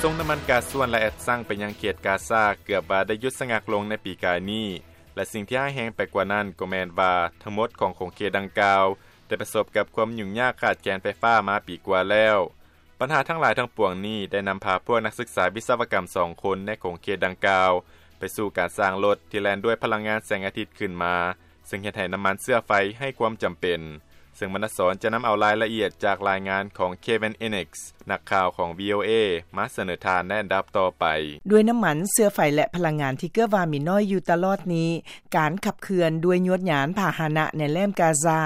ສົ່ງນ້ຳມັນກາຊວນ ແລະ ແອັດຊັງໄປຍັງເຂດກາຊາ ເກືອບວ່າໄດ້ຢຸດສະງັກລົງໃນປີກາຍນີ້ ແລະ ສິ່ງທີ່ຮ້າຍແຮງໄປກວ່ານັ້ນກໍແມ່ນວ່າ ທັງໝົດຂອງຂົງເຂດດັ່ງກ່າວ ໄດ້ປະສົບກັບຄວາມຫຍຸ້ງຍາກຂາດແຄນໄຟຟ້າມາປີກວ່າແລ້ວ. ບັນຫາທັງຫຼາຍທັງປວງນີ້ ໄດ້ນຳພາພວກນັກສຶກສາວິສະວະກຳສອງຄົນໃນຂົງເຂດດັ່ງກ່າວ ໄປສູ່ການສ້າງລົດທີ່ແລ່ນດ້ວຍພະລັງງານແສງອາທິດຂຶ້ນມາ, ເຊິ່ງເຮັດໃຫ້ນ້ຳມັນເຊື້ອໄຟໄຮ້ຄວາມຈຳເປັນ. ເຊິ່ງມະນະສອນຈະນຳເອົາລາຍລະອຽດຈາກລາຍງານຂອງ Kevin Innes ນັກຂ່າວຂອງ VOA ມາສະເໜີທ່ານໃນອັນດັບຕໍ່ໄປ. ດ້ວຍນ້ຳມັນເຊື້ອໄຟ ແລະ ພະລັງງານທີ່ເກືອບວ່າມີໜ້ອຍຢູ່ຕະຫຼອດນີ້, ການຂັບເຄື່ອນດ້ວຍຍວດຍານພາຫະນະໃນແຫຼມກາຊາ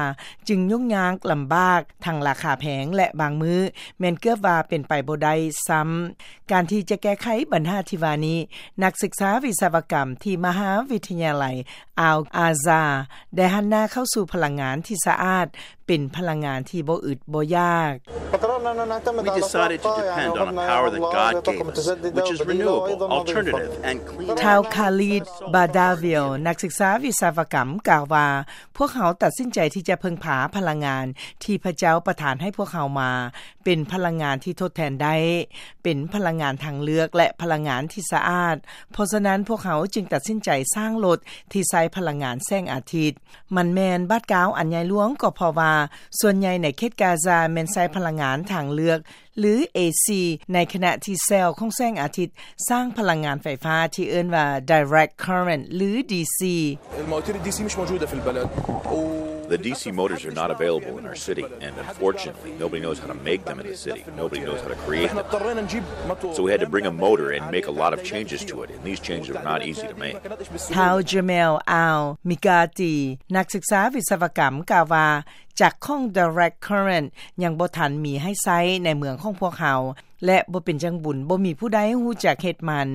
ຈຶ່ງຫຍຸ້ງຍາກລຳບາກ, ທັງລາຄາແພງ ແລະ ບາງມື້ແມ່ນເກືອບວ່າເປັນໄປບໍ່ໄດ້ຊ້ຳ. ການທີ່ຈະແກ້ໄຂບັນຫາທີ່ວ່ານີ້, ນັກສຶກສາວິສະວະກຳທີ່ມະຫາວິທະຍາໄລ Al Azhar ໄດ້ຫັນໜ້າເຂົ້າສູ່ພະລັງງານທີ່ສະອາດ, ເປັນພະລັງງານທີ່ບໍ່ອຶດບໍ່ຢາກ. We decided to depend on a power that God gave us, which is renewable, alternative, and clean. ທ້າວ Khalid Badaville ນັກສຶກສາວິສະວະກຳ ກ່າວວ່າ, ພວກເຮົາຕັດສິນໃຈທີ່ຈະເພິ່ງພາພະລັງງານທີ່ພະເຈົ້າປະທານໃຫ້ພວກເຮົາມາ, ເປັນພະລັງງານທີ່ທົດແທນໄດ້, ເປັນພະລັງງານທາງເລືອກ ແລະ ພະລັງງານທີ່ສະອາດ. ເພາະສະນັ້ນ, ພວກເຮົາຈຶ່ງຕັດສິນໃຈສ້າງລົດທີ່ໃຊ້ພະລັງງານແສງອາທິດ. ມັນແມ່ນບາດກ້າວອັນໃຫຍ່ຫຼວງ, ກໍເພາະວ່າສ່ວນໃຫຍ່ໃນເຂດກາຊາແມ່ນໃຊ້ພະລັງງານທາງເລືອກ ຫຼື ເອຊີ, ໃນຂະນະທີ່ແຊວຂອງແສງອາທິດສ້າງພະລັງງານໄຟຟ້າທີ່ເອີ້ນວ່າ direct current ຫຼື DC. المواتير الDC مش موجودة في البلد. و The DC motors are not available in our city, and unfortunately, nobody knows how to make them in the city. Nobody knows how to create them. احنا اضطرينا نجيب متو- So we had to bring a motor and make a lot of changes to it, and these changes were not easy to make. ທ້າວ Jamel Al Miqati ນັກສຶກສາວິສະວະກຳ ກ່າວວ່າ ຈັກຂອງ direct current ຍັງບໍ່ທັນມີໃຫ້ໃຊ້ໃນເມືອງຂອງພວກເຮົາ ແລະ ບໍ່ເປັນຈັ່ງບຸນ ບໍ່ມີຜູ້ໃດຮູ້ຈັກເຮັດມັນ,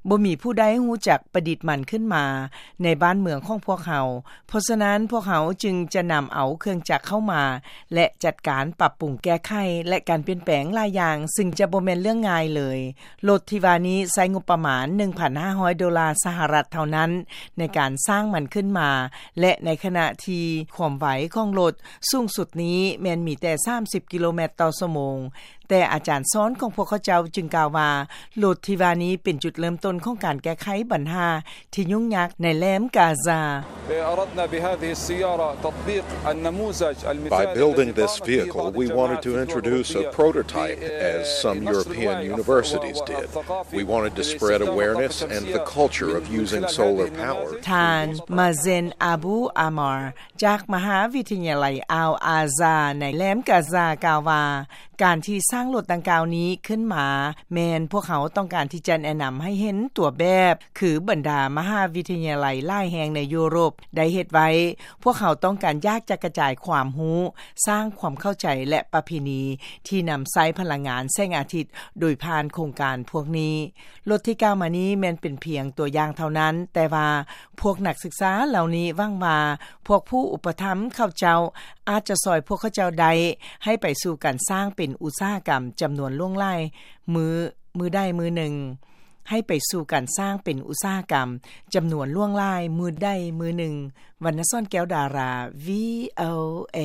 ບໍ່ມີຜູ້ໃດຮູ້ຈັກປະດິດມັນຂຶ້ນມາໃນບ້ານເມືອງຂອງພວກເຮົາ. ເພາະສະນັ້ນ, ພວກເຮົາຈຶ່ງຈະນຳເອົາເຄື່ອງຈັກເຂົ້າມາ ແລະ ຈັດການປັບປຸງແກ້ໄຂ ແລະ ການປ່ຽນແປງຫຼາຍຢ່າງ, ຊຶ່ງຈະບໍ່ແມ່ນເລື່ອງງ່າຍເລີຍ. ລົດທີ່ວ່ານີ້ໃຊ້ງົບປະມານ ໜຶ່ງພັນຫ້າຮ້ອຍໂດລາສະຫະລັດເທົ່ານັ້ນ ໃນການສ້າງມັນຂຶ້ນມາ ແລະ ໃນຂະນະທີ່ຄວາມໄວຂອງລົດສູງສຸດນີ້ແມ່ນມີແຕ່ສາມສິບກິໂລແມັດຕໍ່ຊົ່ວໂມງ, ແຕ່ອາຈານສອນຂອງພວກເຂົາເຈົ້າຈຶ່ງກ່າວວ່າ ລົດທີ່ວ່ານີ້ເປັນຈຸດເລີ່ມຕົ້ນຂອງການແກ້ໄຂບັນຫາທີ່ຫຍຸ້ງຍາກໃນແຫຼມກາຊາ. أردنا بهذه السيارة تطبيق النموذج المثالي By building this vehicle, we wanted to introduce a prototype, as some European universities did. We wanted to spread awareness and the culture of using solar power. ທ່ານ Mazen Abu Ammar ຈາກມະຫາວິທະຍາໄລ Al Azhar ໃນແຫຼມກາຊາ ກ່າວວ່າ ການທີ່ສ້າງລົດດັ່ງກ່າວນີ້ຂຶ້ນມາ ແມ່ນພວກເຮົາຕ້ອງການທີ່ຈະແນະນຳໃຫ້ເຫັນຕົວແບບ ຄືບັນດາມະຫາວິທະຍາໄລຫຼາຍແຫ່ງໃນຢູໂຣບໄດ້ເຮັດໄວ້. ພວກເຮົາຕ້ອງການຢາກຈະກະຈາຍຄວາມຮູ້, ສ້າງຄວາມເຂົ້າໃຈ ແລະ ປະເພນີທີ່ນຳໃຊ້ພະລັງງານແສງອາທິດໂດຍຜ່ານໂຄງການພວກນີ້. ລົດທີ່ກ່າວມານີ້ແມ່ນເປັນພຽງຕົວຢ່າງເທົ່ານັ້ນ, ແຕ່ວ່າພວກນັກສຶກສາເຫຼົ່ານີ້ຫວັງວ່າ ພວກຜູ້ອຸປະຖຳເຂົາເຈົ້າອາດຈະຊ່ອຍພວກເຂົາເຈົ້າໄດ້ ໃຫ້ໄປສູ່ການສ້າງເປັນອຸດສາຫະກຳຈຳນວນຫຼວງຫຼາຍມື້, ມື້ໃດມື້ໜຶ່ງ, ໃຫ້ໄປສູ່ການສ້າງເປັນອຸດສາຫະກຳຈຳນວນຫຼວງຫຼາຍມື້ໃດມື້ໜຶ່ງ. ວັນນະສອນ ແກ້ວດາລາ VOA.